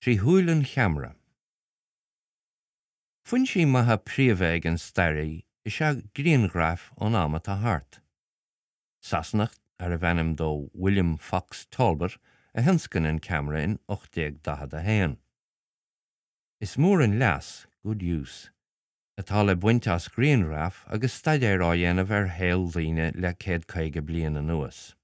Trí shúil an cheamara. Foinsí maithe príomha ag an staraí is ea grianghraif ón am atá thart. Sasanach arbh ainm dó William Fox Talbot a thionscain an ceamara in 1841. Is mór an leas, good use, atá le baint as grianghraif agus staidéar á dhéanamh ar shaol daoine le 150 bliain anuas.